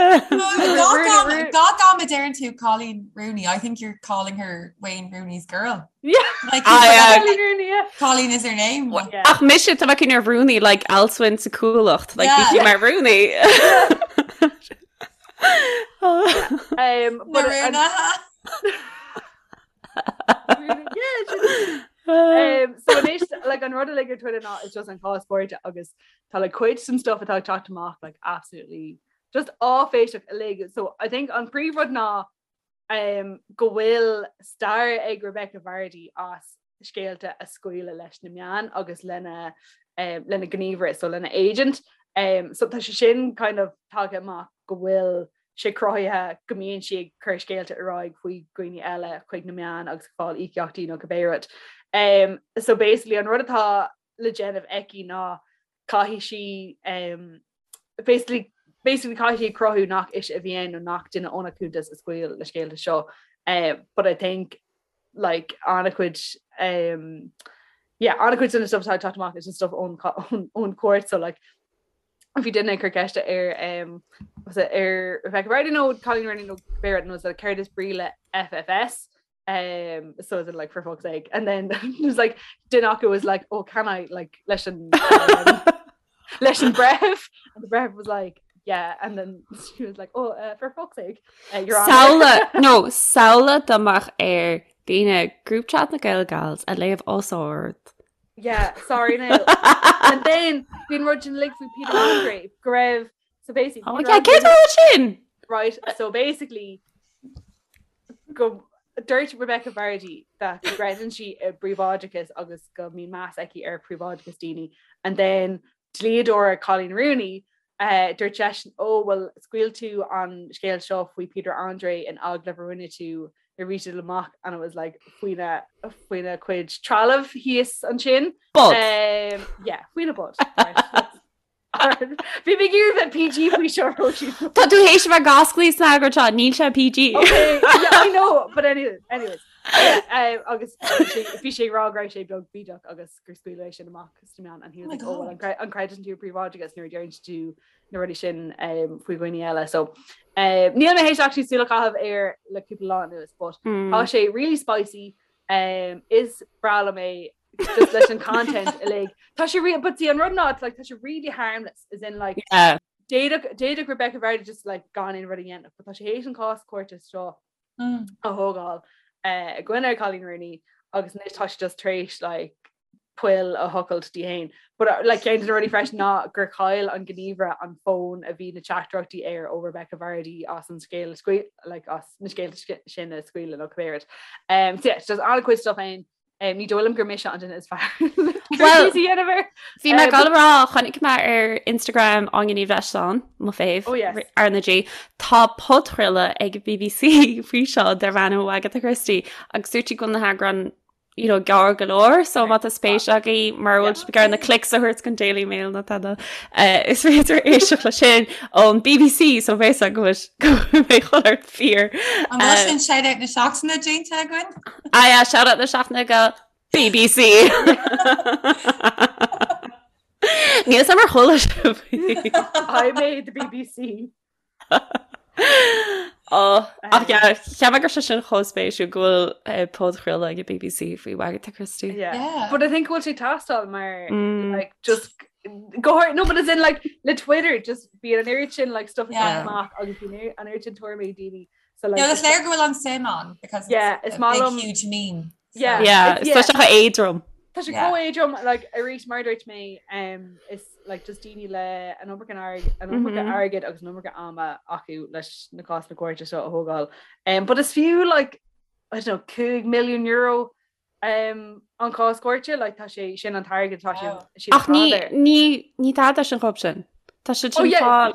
Rooney- Gach am a deireann tú Coleen Rooney. I think you're calling her Wayne Rooney's girl. Yeah. Like Ah, yeah. Coleen Rooney, yeah. Coleen is her name. Yeah. Ach mise tá cin ar Rooney like Alswin sa cualacht like Yeah. bhí sí mar Rooney. Um, but Na an- Rúnaithe. Yeah, sin- Um, so anois like an rud uilig ar Twitter ná is just an cás cúirte agus tá like cuid den stuff atá ag teacht amach like absolutely just áiféiseach uilig. So I think an príomhrud ná um, go bhfuil stair ag Rebecca Vardy as scéalta a scaoileadh leis na meáin agus lena um, lena gníomhaire, so lena agent. Um, so tá sé sin kind of tagtha amach go bhfuil sé cruthaithe go mbíonn sí ag cur scéalta ar aghaidh faoi dhaoine eile chuig na meáin agus ag fáil íocaíochtaí nó cibé rud. Um, so basically an rud atá le déanamh aici ná caithfidh sí um, basically basically caithfidh sí cruthú nach ise a bhí ann nó nach duine óna cuntas a scaoil na scéalta seo. Uh, but I think like an-chuid um, yeah, an-chuid den stuff atá ag teacht amach is an stuff ón ón ón court so like bhí duine ag cur ceiste ar um, was it ar Rebecca Vardy nó Colleen Rooney nó cibé rud nó céard is brí le FFS um, so is it like for fuck's sake and then it was like duine acu was like oh can I like leis an um, leis an breitheamh and the breitheamh was like yeah and then she was like oh uh, for fuck's sake uh, you're on Samhlaigh nó samhlaigh dá mbeadh ar daoine group chat na Gael Gals a léamh os ard. Yeah, sorry now. And then bhí an rud sin uilig faoi Peter Andre go raibh so basically Oh Peter yeah, cé Andre- rud sin? right so basically go dúirt Rebecca Vardy that go gcreideann sí i bpríobháideachas agus go mbíonn meas aici ar phríobháideachas daoine and then dlíodóir Colleen Rooney uh, dúirt seisean ó well scaoil tú an scéal seo faoi Peter Andre in agallamh a rinne tú nuair a bhí sé amach and it was like faoina faoina cuid trealamh thíos ansin Bod. um, yeah faoina bod right. Bhí mé ag iarraidh bheith PG faoi seo Róisín. Tá tú théis a bheith gasclaí sna eagraí seo, níl sé PG. Okay, yeah, I know, but anyway, anyways. Yeah, um, agus bhí sé- bhí sé ag rá go raibh sé beag bídeach agus gur scaoileadh é sin amach sna meáin and he was Oh my like, oh, well, God. an cre- an gcreideann tú i bpríobháideachas nuair a deireann tú na rudaí sin um, faoi dhaoine eile. So um, níl mé théis actually súil a chaitheamh air le cúpla lá anuas, but Mm. tá sé really spicy. Um, is breá liom é just leis an content uilig. Tá sé re but see an rud ná it's like tá sé really harmless as in like Yeah. d'fhéadfadh d'fhéadfadh Rebecca Vardy just like gan aon rud a dhéanamh, but tá sé théis an cás cúirte seo Mm. a thógáil eh, i gcoinne Colleen Rooney agus anois tá sé just tar éis like poill a thochailt di féin. But uh, like ceann de na rudaí freisin ná gur chaill an gníomhaire an fón a bhí na teachtaireachtaí air ó Rebecca Vardy as an scéal a scaoil like as na scéalta sin a scaoileadh nó cibé rud. Um, so yeah, just an-chuid stuff ann. Um, ní dóigh liom gur mise an duine is fearr. Well, Well, Bhí mé ag dul a rá chonaic mé ar Instagram Áine Ní Bhreisleáin, mo fave Oh, yes. R na G. Tá podchraoladh ag BBC faoi seo darb ainm Wagatha Christie agus dúirt sí go bhfuil na heagráin you know, gearr go leor, so má tá spéis agaibh mar bhfuil sibh ag iarraidh na clicks a thabhairt don Daily Mail nó tada. Uh, is féidir éisteacht le sin ón BBC so bheidh go bhfuil mé chuir fíor. An bhfuil sin shout-out na seachtaine déanta againn? Ah yeah, shout out na seachtaine go BBC. Níl a fhios agam ar chuala sibh. I made the BBC. Oh, ach yeah, cheap mé go raibh sé sin chomh spéisiúil go bhfuil eh, podchraoladh ag BBC faoi Wagatha Christie. Yeah. Yeah. But I think go bhfuil sé ag teastáil mar Mm. like just go hard no but as in like le Twitter just bíonn an oiread sin like stuff Yeah. amach agus bíonn an oiread sin tuairimí ag daoine so like No, is léir go bhfuil an suim ann because it's Yeah, is a maith big liom- huge meme. So- Yeah. Yeah, It's- is tá sé chomh éadrom. Tá sé Yeah. chomh éadrom like arís mar a dúirt mé um, is like just daoine le an iomarca airg- an iomarca Mhm. airgid agus an iomarca ama acu leis na cásanna cúirte seo a thógáil. Um, but is fiú like I don't know 5 milliún euro um, an cás cúirte like tá sé sin an t-airgead tá sé Wow. siad Ach ní ag fáil air. ní ní tada sin chomh sin. Tá sé Oh sin yeah, fáil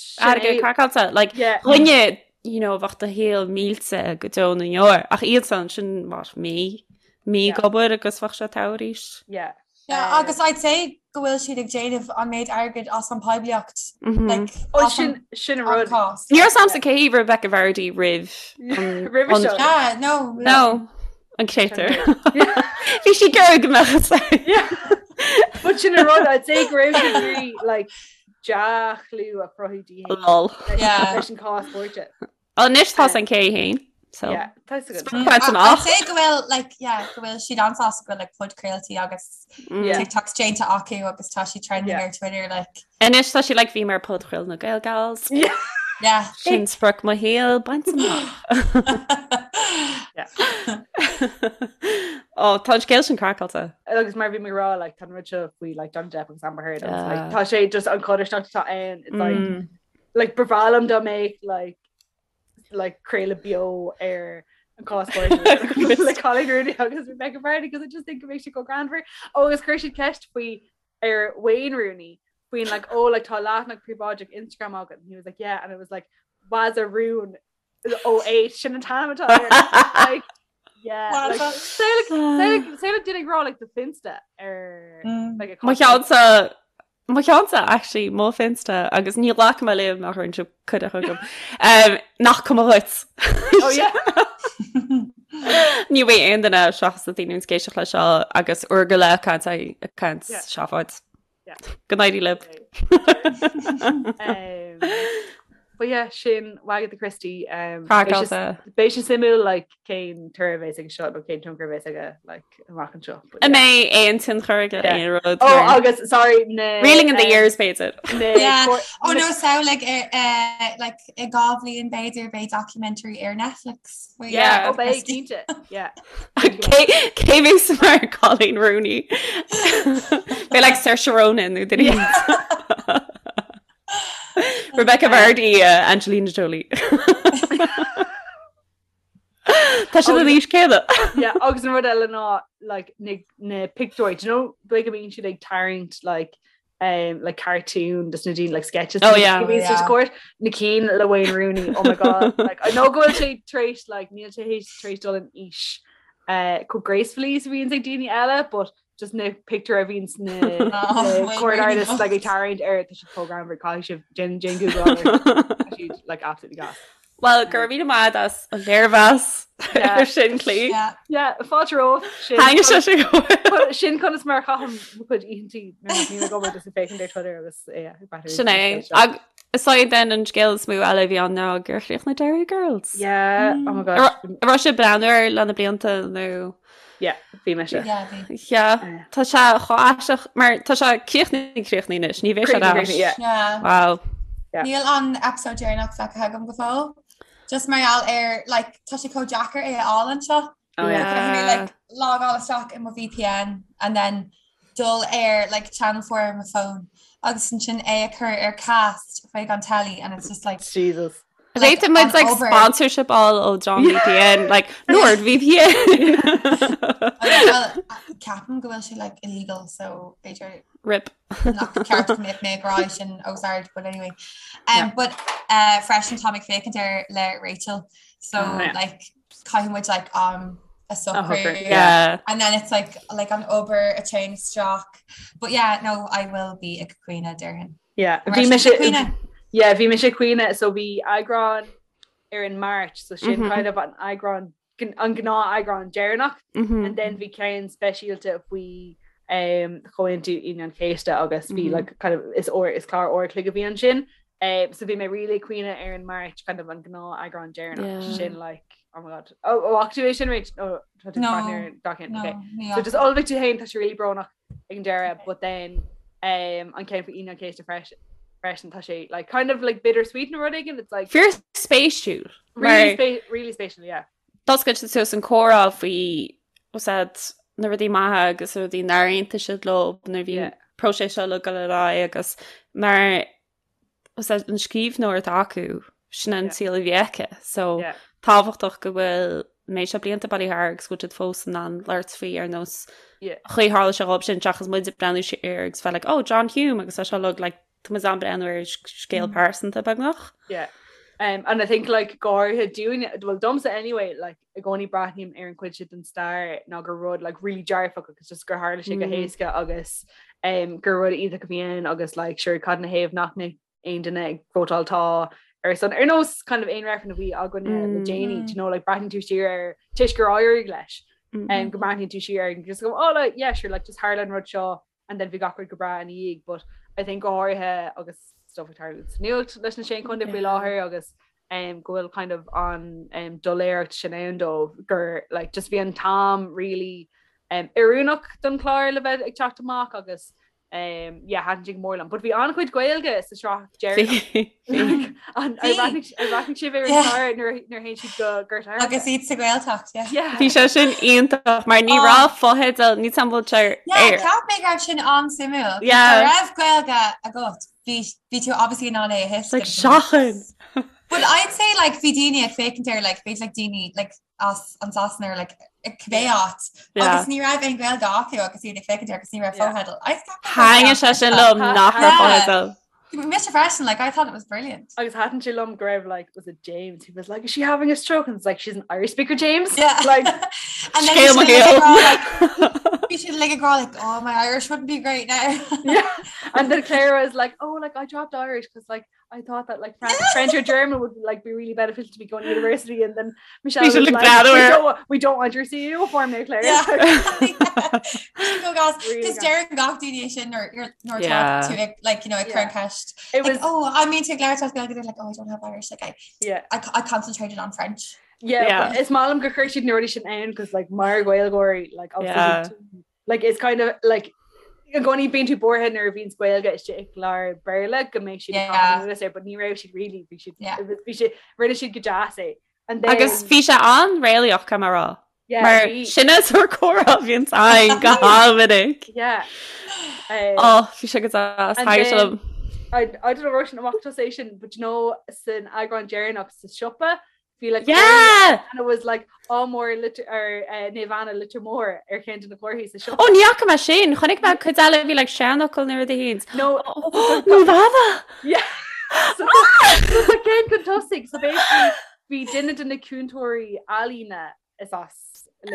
sin airgead é. craiceáilte like Yeah. dhuine you know, bheadh do shaol millte go deo na ndeor ach iadsan sin mar mí mí Yeah. ag obair agus bheadh sé togha arís. Yeah. Yeah, Um, agus I'd say go bhfuil siad ag déanamh an méid airgid as an poiblíocht Mhm. like, Oh, as an sin sin an an rud. cás. Ní raibh a fhios agamsa cé hí Rebecca Vardy roimh an- Roimhe an- seo. Yeah, no, No, an créatúr. Yeah. Bhí sí ag iarraidh go mbeadh a fhios aici. Yeah. But sin an rud I'd say go raibh sí ag iarraidh, like dea-chlú a chruthú di féin Lol. Yeah. leis an cás cúirte. Anois tá an cé féin. So Yeah, tá a fhios agat. Sprioc I'd amach. say go bhfuil like yeah, go bhfuil siad an-sásta go bhfuil like podchraoltaí agus Mm. Yeah. TikToks déanta acu agus tá sí trending Yeah. ar Twitter like Anois tá sí like bhí mé ar podchraoladh na Gael Gals. Yeah. yeah. Sin sprioc mo shaoil bainte amach. Yeah. Oh, tá an scéal sin craiceáilte. Agus mar bhí mé ag rá like, tá an rud seo faoi like, Johnny Depp agus Amber Heard agus like, tá sé just an chodarsnacht atá ann it's like mm. like ba bhreá liom dá mbeadh like like craoladh beo ar an cás le Coleen Rooney agus Rebecca Vardy because I just think it makes you go greannmhar. Oh, agus chuir siad ceist faoi ar Wayne Rooney faoin like oh like tá leathanach príobháideach Instagram agat and he was like yeah and it was like Wazza Roon 08 sin an t-ainm atá air. Like yeah like say like duine ag rá like do Finsta ar mm. like a Mo cheannsa Mo cheannsa actually mo Finsta agus ní ghlacfaidh mé léi má chuireann sibh cuireadh chugam. Um, nach cuma dhuit. Oh yeah. Ní bheidh aon duine seachas na daoine ag éisteacht leis seo agus uair go leith caint caint seafóid. Go n-éirí libh. Um, but yeah, sin Wagatha Christie. Um, Craiceáilte. Beidh sé suimiúil like, cén toradh a bheas aige seo nó cén tionchar a bheas aige like, amach anseo. An mbeidh aon tionchar aige aon rud? Oh, agus sorry na Reeling in the um, years b'fhéidir. Yeah. Oh no, so like uh, like i gá bhliain b'fhéidir beidh documentary ar Netflix. Yeah, oh, beidh cinnte. Yeah. Cé bheas mar Coleen Rooney? Beidh like Saoirse Ronan nó duine Rebecca Vardy, uh, Angelina Jolie. Tá siad an aois céanna. Yeah, agus an rud eile ná like, na, na pictiúir, do you know, dóigh go mbíonn siad ag tarraingt like, um, like cartoon des na daoine like sketches oh, yeah. oh, yeah. court na cinn le Wayne Rooney oh my god like I know go bhfuil sé tar éis like níl sé tar éis dul in aois uh, chomh gracefully is a bhíonn ag daoine eile but just na pictiúir a bhíonn na oh, court artists like ag tarraingt air tá siad chomh greannmhar caithfidh sibh déan déan Google siad like absolutely gas. Well, go raibh míle maith as an léirmheas ar sin Clí. Yeah, fáilte romhat. Thaitnigh sé sin go mór. Sin conas mar a chaithim mo chuid oícheantaí nuair nach mbím ag obair just ag féachaint ar Twitter agus yeah, ag breathnú Sin é. Ag is é then an scéal is mó eile a bhí ann ná gur chríochnaigh Derry Girls. Yeah, oh my gosh. An raibh sibh ag breathnú air le na blianta nó? Yeah, bhí mise. Yeah, bhí. Yeah, tá sé chomh aisteach mar tá sé críochnaithe críochnaithe anois, ní bheidh sé ar ais. Yeah. Yeah. Wow. Yeah. Níl an episode deireanach feicthe agam go fóill. Just mar gheall ar like tá sé chomh deacair é a fháil anseo. Oh yeah. Caithfidh mé like logáil isteach i mo VPN and then dul ar like channel 4 ar mo phone agus ansin é a chur ar cast chuig an telly and it's just like Jesus. Like, Féadfaidh muid like sponsorship a fháil ó John VPN like Nord VPN. Well, ceapaim go bhfuil sé like illegal so b'fhéidir Rip. nach ceart go mbeadh mé ag rá sin os ard but anyway. Um, but uh, freisin tá mé ag féachaint air le Rachel so oh, yeah. like caithfidh muid like um a socrú yeah and then it's like like an obair a téann isteach but yeah no I will be ag caoineadh déarfainn yeah bhí mise yeah bhí mise ag caoineadh so bhí eagrán ar an March so sin mm -hmm. kind of an eagrán an gnáth eagrán deireanach mm -hmm. and then bhí ceann speisialta faoi um, Chomhaontú Aoine an Chéasta agus bhí mm -hmm. like, kind of, is, or, is clár uair a chloig a bhí ansin Um, so bhí mé really ag caoineadh ar an March kind of an gnáth eagrán deireanach yeah. sin like oh my god oh, oh tú é sin Rach oh, no, no, okay. so just ullmhaigh tú féin tá sé really brónach ag an deireadh okay. but then um, an ceann faoi Aoine an Chéasta freisin freisin tá sé like kind of like bittersweet nó rud éigin it's like Fíor spéisiúil really, spe really spéisiúil yeah D'oscail sé suas an comhrá faoi said na rudaí maithe agus na rudaí nár aontaigh siad leo nuair bhí yeah. próiseas seo le dul ar aghaidh agus mar an scríbhneoir atá acu, sin an saol a bhí aici. So tábhachtach go bhfuil méid seo blianta bailithe thart agus go bhfuil siad fós in ann labhairt faoi ar nós chaoi tharla sé dhóibh sin seachas muid ag breathnú siar agus bheith like, oh, John Hume agus tá seo like, like tá muid ag breathnú ar scéal pearsanta beagnach. Yeah. Um, and I think like go háirithe dúinne, well domsa anyway, like i gcónaí breathnaím ar an chuid sin den stair ná gur rud like really dearfach agus just gur tharla sé go mm. héasca agus um, gur rud iontach a bhí ann agus like sure cad ina thaobh nach mbeadh aon duine ag vótáil tá ar son ar nós kind of aon reifreann a bhí againn mm. le déanaí you know like breathnaíonn tú siar ar toisc gur éirigh leis mm. um, go mbreathnaíonn tú siar ar just go oh like, yeah sure like just tharla an rud seo and then bhí gach rud go breá ina dhiaidh but I think go háirithe agus stuff ag tarlú sa nuacht leis na Sé Chontae faoi láthair agus um, go bhfuil kind of an um, doiléireacht sin ann dóibh gur like, just bhí an t-am really um, oiriúnach don chlár le bheith ag teacht amach agus Um, yeah, thaitin sé go mór liom. But bhí an-chuid Gaeilge sa sraith deireanach. Bhí. An- ar bhreathnaigh ar bhreathnaigh sibh ar an Yeah. chlár nuair nuair a théann siad go Gort Airne? Agus iad sa Ghaeltacht, yeah. Yeah. Bhí sé sin iontach mar ní Oh. raibh fotheidil ní sam bhfuil sé Yeah, ar. cheap mé go raibh sin an-suimiúil. Yeah. Dá raibh Gaeilge agat, bhí bhí tú obviously in ann é a It's like thuiscint. seachain. But I'd say like bhí daoine ag féachaint air like b'fhéidir like daoine like as an Sasana or like cibé áit agus ní raibh aon Ghaeilge acu agus iad ag féachaint air agus ní raibh fotheidil. Thaitin sé sin liom nach raibh fotheidil. Mise freisin, like I thought it was brilliant. Agus thaitin sé liom go raibh like was it James who was like is she having a stroke and it's like she's an Irish speaker James Yeah. like And then Scéal mo bhí siad shaoil. like, bhí siad like ag rá like oh my Irish wouldn't be great now. yeah and then Clara was like oh like I dropped Irish because like I thought that like French, French or German would like be really beneficial to me going to university and then Michelle We should was look like, glad we we're- don't, wa- we don't want your CU form now Claire Yeah. Go gas Really Cos gas. deireann gach duine sin or you're nor Yeah. to like, like you know ag Yeah. cur an ceist it like was oh I mean to Claire talk they're like oh I don't have Irish like I yeah I, I concentrated on French yeah, Yeah. but is maith liom gur chuir siad na rudaí sin ann cos like mar Ghaeilgeoirí like obviously Yeah. like it's kind of like i gcónaí bíonn tú buartha nuair a bhíonn Gaeilge istigh i gclár Béarla go mbeidh siad Yeah. ag caitheamh anuas air, but ní raibh siad really bhí siad Yeah. bhí siad rinne siad go deas é and then Agus bhí sé an-réalaíoch caithfidh mé a rá. yeah, Mar bhí- sin is ar comhrá a bhíonn againn go han-mhinic. yeah um, Ó bhí sé go deas And Thaitin sé then- liom. I, I don't know raibh sin amach tusa é sin but you know san eagrán deireanach sa siopa bhí like Yeah! and it was like Ádh Mór Leitir or uh, Naomh Anna Leitir Móir ar cheann de na comharthaí sa siopa. Ó ní fhaca mé sin, chonaic mé cuid eile bhí like seanfhocal nó rud éigin. No Naomh Anna! yeah. So so tá ceann chun tosaigh so basically bhí duine de na cúntóirí ealaíne is as is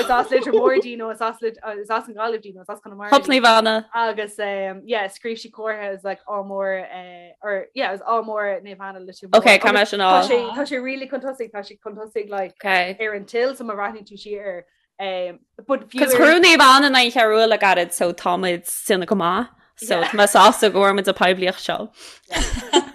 as Leitir Móir di nó is as is as an Ghaillimh di nó is as Conamara Hup di. Naomh Anna. Agus um, yeah, scríobh sí comhartha is like Ádh Mór uh, or yeah, it was Ádh Mór Naomh Anna Leitir Móir. Ok, caithfidh mé sin Tá á. sé tá sé really chun tosaigh tá sé chun tosaigh like Ok. ar an till so má bhreathnaíonn tú siar air. Um, but fiú Cos ar- chuir Naomh Anna in aghaidh Cheathrú Rua le gairid so táimid déanamh go maith. So Yeah. tá mé sásta go bhfuair muid an poiblíocht seo.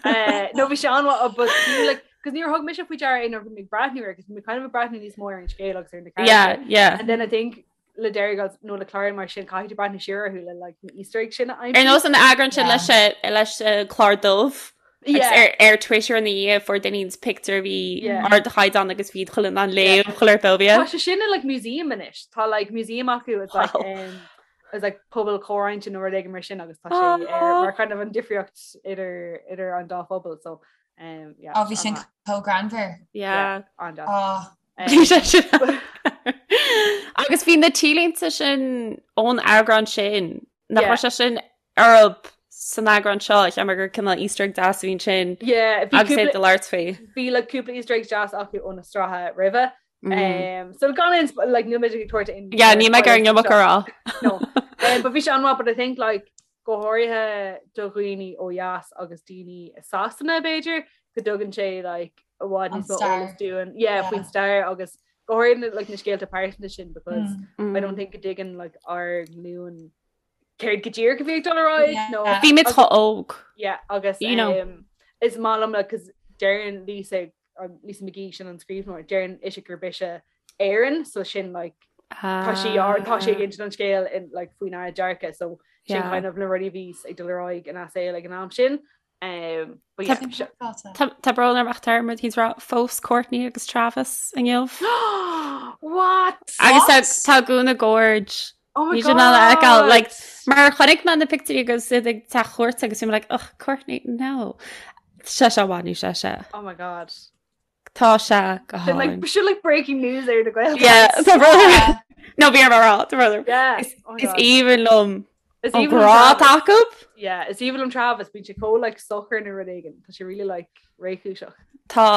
Uh, no bhí sé an-mhaith but fiú like cos níor thug mise faoi deara é nuair a bhí mé ag breathnú air cos bhí mé kind of ag breathnú níos mó ar an scéal agus ar na Yeah, characters. yeah. And then I think le Derry Girls nó le cláir mar sin caithfidh tú breathnú siar orthu le like na Easter eggs sin a Ar aimsiú. nós an eagrán sin Yeah. leis eh, leis eh, clár dubh agus Yeah. ar ar Twitter ina dhiaidh fuair duine éigin pictiúr a bhí Yeah. ardchaighdeán agus bhí chuile an léamh chuile bóbia. Tá sé sin in like museum anois. Tá like museum acu it's like Wow. um, it's like pobal comhroinnte nó rud éigin mar sin agus tá sé ar Aw. mar kind of an difríocht idir idir an dá phobal so um, yeah, Ó bhí sin an-mhaith. chomh greannmhar. Yeah. An-deas. Ó Um, Bhí sé sin. Agus bhí na T-léinte sin ón eagrán sin nach Yeah. raibh sé sin orthu san eagrán seo cheap mé gur cineál Easter egg deas a bhí ansin Yeah, bhí agus é cúpla do labhairt faoi. bhí like cúpla Easter eggs deas acu ó na sraithe roimhe. Mm. Um, so gan aon sp- like níl muid ag tabhairt aon Yeah, níl mé ag iarraidh an iomarca a rá. No. Um, but bhí sé an-mhaith, but I think like go háirithe do dhaoine ó dheas agus daoine i Sasana b'fhéidir go dtugann sé like i bhfad An níos mó stair. eolas dúinn yeah, Yeah. faoin stair agus go háirithe like na scéalta pearsanta sin because mm. I don't think go dtuigeann like ár nglúin céard go díreach a bhí ag dul ar aghaidh Yeah. nó Bhí muid chomh óg. yeah, agus You know. um, is maith liom like, 'cause deireann Lisa um, Lisa McGee sin an scríbhneoir deireann ise gurb ise Éireann so sin like tá sí ar tá sí ag insint an scéal in like faoinár dearcadh so sin Yeah. kind of na rudaí a bhí ag dul ar aghaidh ina saol ag an am sin um, but yeah, Sin craiceáilte. Tá tá brón orm ach tá muid ag rá phós Courtney agus Travis inniu. What? Agus What? tá tá gúna gorge. Oh my Ní sin a fheiceáil, like, God. Mar chonaic mé na pictiúirí agus iad ag teach cuairte agus bhí mé like, ugh, Courtney, no. Sé sé bhain sé sé. Oh my God. Tá sé go Sin like, hálainn. sin like breaking news ar na Gael. Yeah, tá brón orm. Yeah. No, bhí orm a rá, tá brón orm. Yeah. Is Oh my is God. aoibhinn liom Is an aoibhinn liom grá Travis. acu. Yeah, is aoibhinn liom Travis, bíonn sé chomh like socair nó rud éigin. Tá sé really like réchúiseach. Tá,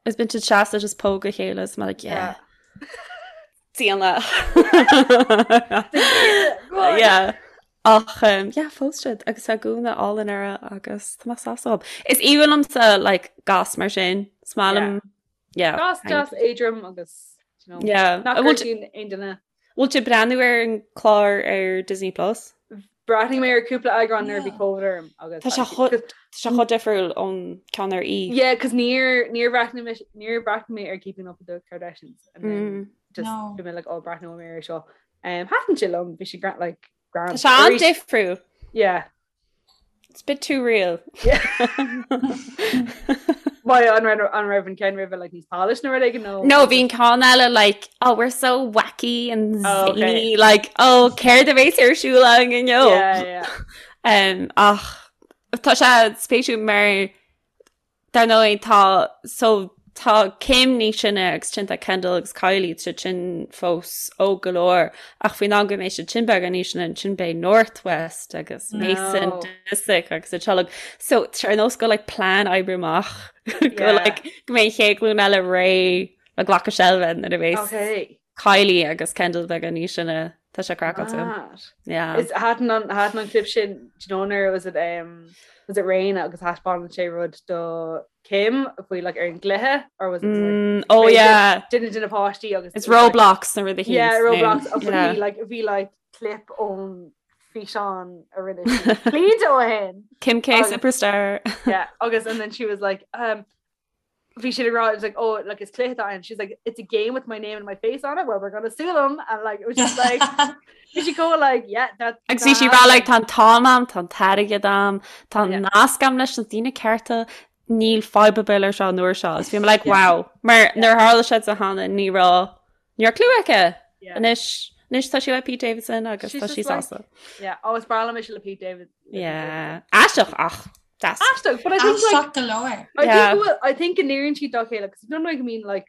is bíonn siad seasta just póg a chéile is mé like, yeah. Déana. Good. Yeah. Ach um, yeah, phós siad agus tá gúna álainn uirthi agus tá mé sásta. Is aoibhinn liomsa like gas mar sin. Is maith liom yeah. Gas deas éadrom agus you know, Yeah. nach An bhfuil gortaíonn aon duine. bhfuil tú ag breathnú ar an clár ar Disney Plus? Bhreathnaigh mé ar cúpla eagrán nuair a bhí Yeah. Covid orm agus Tá sé chomh tá sé chomh difriúil ón ceann ar E. Yeah, cos níor níor bhreathnaigh mé níor bhreathnaigh mé ar Keeping Up with the Kardashians and then Mm. just No. bhí mé like ó breathnóidh mé air seo. Um, thaitin sé liom, bhí sé gra like grand. Tá sé an-difriúil. Yeah. It's a bit too real. Why an raibh an raibh an ceann roimhe like níos polished nó rud éigin nó? No, bhí an ceann eile like, oh, we're so wacky and Oh, okay. zany, like, oh, céard a bheas ar siúl againn inniu? Yeah, yeah. Um, ach tá sé spéisiúil mar Dar ndóigh tá so tá Kim níos sine agus ansin tá Kendall agus Kylie tá siad sin fós óg go leor ach faoin am go mbeidh siad sin beagán níos sine ansin beidh North West agus Mason No. Disick agus a teaghlach. So tá ar nós go like plean oibre amach go Yeah. like go mbeidh an chéad ghlúin eile réidh le glacadh seilbhe nuair a bheas Okay. Kylie agus Kendall beagán níos sine tá sé craiceáilte. Mad. Yeah. Is thaitin an thaitin an clip sin do you know nuair was it um was it Raina agus thaispeánann sé rud do Kim faoi like ar an gcluiche or was it like, Mm, oh Wait, yeah. duine de na páistí agus It's it was, like- Roblox na rudaí Yeah, Roblox agus Yeah. bhí like bhí like clip ón físeán a rinne sí blianta ó shin. Kim K Agus- Superstar. Yeah, agus and then she was like um bhí siad ag rá it was like oh like is cluiche atá ann she's like it's a game with my name and my face on it well we're gonna sue them and like it was just like bhí sí chomh like yeah that Agus bhí sí ag rá like tá an t-am a'm, tá an t-airgead a'm, tá Yeah. nasc a'm leis na daoine cearta, níl fadhb ar bith leis seo an uair seo. Agus bhí mé like wow, mar nuair a tharla sé di cheana ní raibh ní raibh clue aici. Yeah. Anois anois tá sí le Pete Davidson agus She's tá sí just like- sásta. yeah oh is breá liom mise le Pete David le Pete Yeah. Aisteach ach deas. Davidson. Aisteach but I think like Aisteach go leor. I Yeah. think well, I think go n-oireann siad dá chéile because don't know I mean like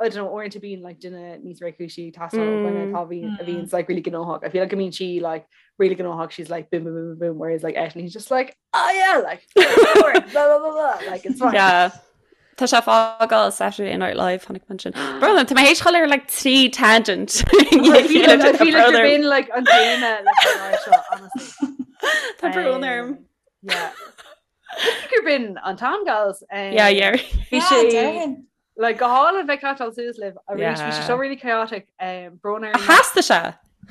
I don't know uaireanta bíonn like duine níos réchúisí ag teastáil ó dhuine Mm. atá bhíonn a Mm. bhíonn like really gnóthach. I feel like I mean she like really gnóthach she's like boom boom boom boom boom whereas like eisean he's just like oh yeah like blah blah blah blah like it's fine. Yeah. Tá sé ag fágáil Saturday Night Live chonaic mé sin. Brother, tá mé théis dul ar like trí tangent. I feel like, I feel like you're being like an téama leis an áit seo, honestly. Tá brón orm. Yeah. Gur b'in an t-am gals. Um, Yeah, yeah. Bhí Yeah, sé déarfainn. like go hálainn bheith ag caiteáil suas libh arís bhí sé Yeah. seo really chaotic um, brón orainn Theastaigh sé.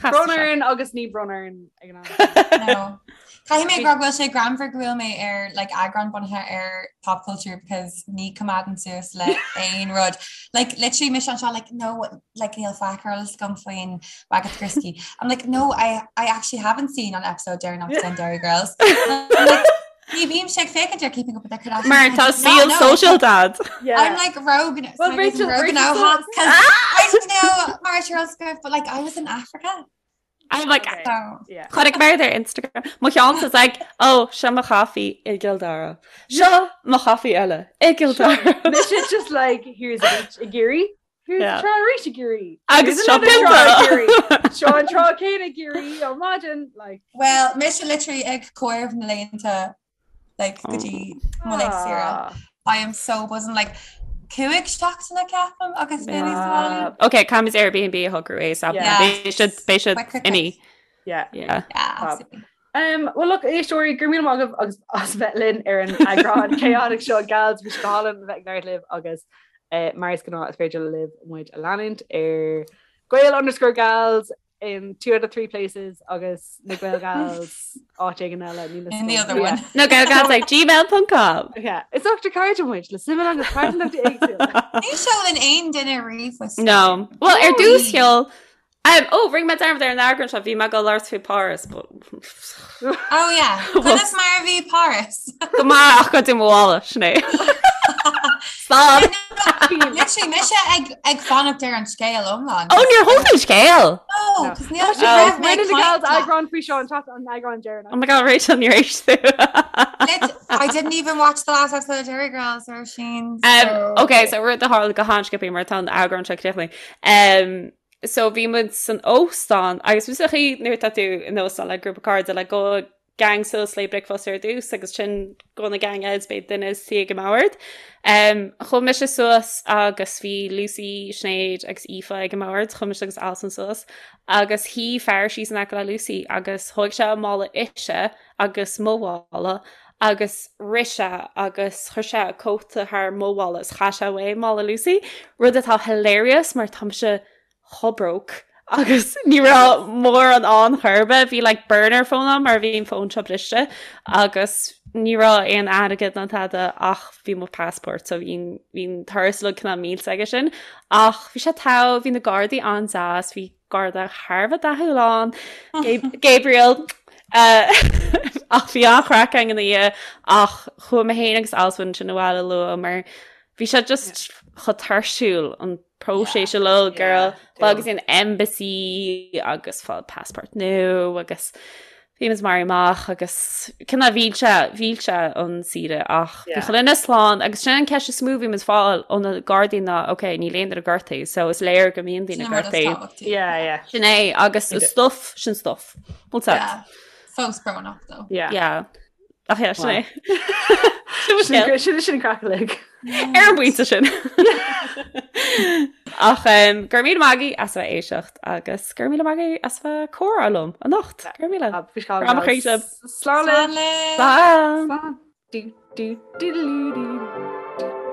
Theastaigh brón sé. orainn agus ní brón orainn ag an am. No. Caithfidh mé go bhfuil sé greannmhar go bhfuil mé ar like eagrán bunaithe ar pop culture because ní choimeádaim suas le aon rud. Like literally mise anseo like no like níl faic ar eolas agam faoin Wagatha Christie. I'm like no I I actually haven't seen an episode deireanach den Derry Girls. I'm like ní bhímse ag féachaint ar Keeping Up with the Kardashians. Mar I tá did not saol know. sóisialta a'd. Yeah. I'm like rogue Well, Rachel- rogue Rachel now said- I don't know Mar Charles but like I was in Africa. I'm like Okay. So Yeah. Chonaic mé ar Instagram. Mo cheann is like, oh, seo mo chaife i gCill Dara. Seo mo chaife eile i gCill Dara. Mise just like here's a beach i gCiarraí. Here's Yeah. trá arís i gCiarraí. Agus Here's seo another trá i pionta. gCiarraí. Seo an trá céanna i gCiarraí ó maidin like Well, mise literally ag comhaireamh na laethanta like go dtí mo laethanta saoire. ah. I am so buzzing like cúig seachtaine ceapaim agus mé níos Ah. Ok, caithfimid Airbnb a shocrú ASAP. Yeah. Beidh siad beidh siad Quick, quick, imithe. Yeah. Yeah. Yeah, Fab. absolutely. Um, well look éisteoirí go raibh míle maith agaibh agus as bheith linn ar an eagrán chaotic seo gals bhí sé go hálainn bheith ag labhairt libh agus eh, mar is gnáth is féidir libh muid a leanúint ar Gael underscore gals in 2 out of 3 places agus na Gael gals áit éigin eile níl In the other one. Na Gael Gals ag gmail.com. Yeah, is ochtar cairde muid le suim agus pearsantacht éagsúla. Ní sheolann aon duine ríomhphost. No. Well, ar dtús sheol Um, oh, rinne mé dearmad ar an eagrán seo, bhí mé ag labhairt faoi Paris, but Oh yeah. Conas mar a bhí Paris? go maith ach goideadh mo mhála, sin é. Stop! Literally mise ag ag fanacht ar an scéal iomlán. Oh, níor thug an scéal! No, cos níl Oh, raibh mé Rinne ag na gals caint leat. eagrán faoi seo an chat an eagrán deireanach. Oh my god, Rachel, níor éist tú. Lit- I didn't even watch the last episode of Derry Girls or Sheen. Um, okay, so rud a tharla go han-sciobtha mar tá an eagrán seo críochnaithe. Um, so bhí muid san óstán agus bhí sa chaoi nuair atá tú in óstán le grúpa cairde le gabhfaidh gang suas le bricfeasta ar dtús agus ansin gabhfaidh na gang eile is beidh duine suí ag an mbord. Um, chuaigh mise suas agus bhí Lucy, Sinéad agus Aoife ag an mbord, chuaigh mise agus Alison suas agus shuigh fear síos in aice le Lucy agus thóg sé a mála ise agus mo mhála agus rith sé agus chuir sé a cóta thar mo mhála is chaith sé uaidh mála Lucy, rud atá hilarious mar tá mise chomh broke agus ní raibh mórán ann chor ar bith, bhí like burner phone agam mar bhí an fón seo briste agus ní raibh aon airgead ná tada ach bhí mo passport so bhí bhí an turas uilig cineál millte aige sin ach bhí sé togha, bhí na gardaí an-deas, bhí garda thar a bheith dathúil ann, Gabriel. Ach bhí an-chraic againn ina dhiaidh ach chuaigh mé féin agus Alswyn ansin abhaile luath mar bhí sé just chomh tuirsiúil an próiseas uilig girl agus an embassy agus fáil passport nua agus bhí muid maraithe amach agus cineál mhill sé mhill sé an saoire ach bhí chuile dhuine slán agus sin an ceist is mó bhí muid fáil ó na gardaí ná ok níl aon duine gortaithe so is léir go mbíonn daoine gortaithe. Yeah, yeah. Sin é agus stuff sin stuff. Bhfuil yeah. Fós brónach though. Yeah. Yeah. Ach yeah, sin é. Sin sin sin craic uilig. Ar an bpointe sin. Ach um, go raibh míle maith agaibh as a bheith ag éisteacht agus go raibh míle maith agaibh as a bheith ag comhrá liom anocht. Go raibh míle. Grá mo chroí sibh. Slán libh. Slán. Slán. Du, du, du, du, du, du.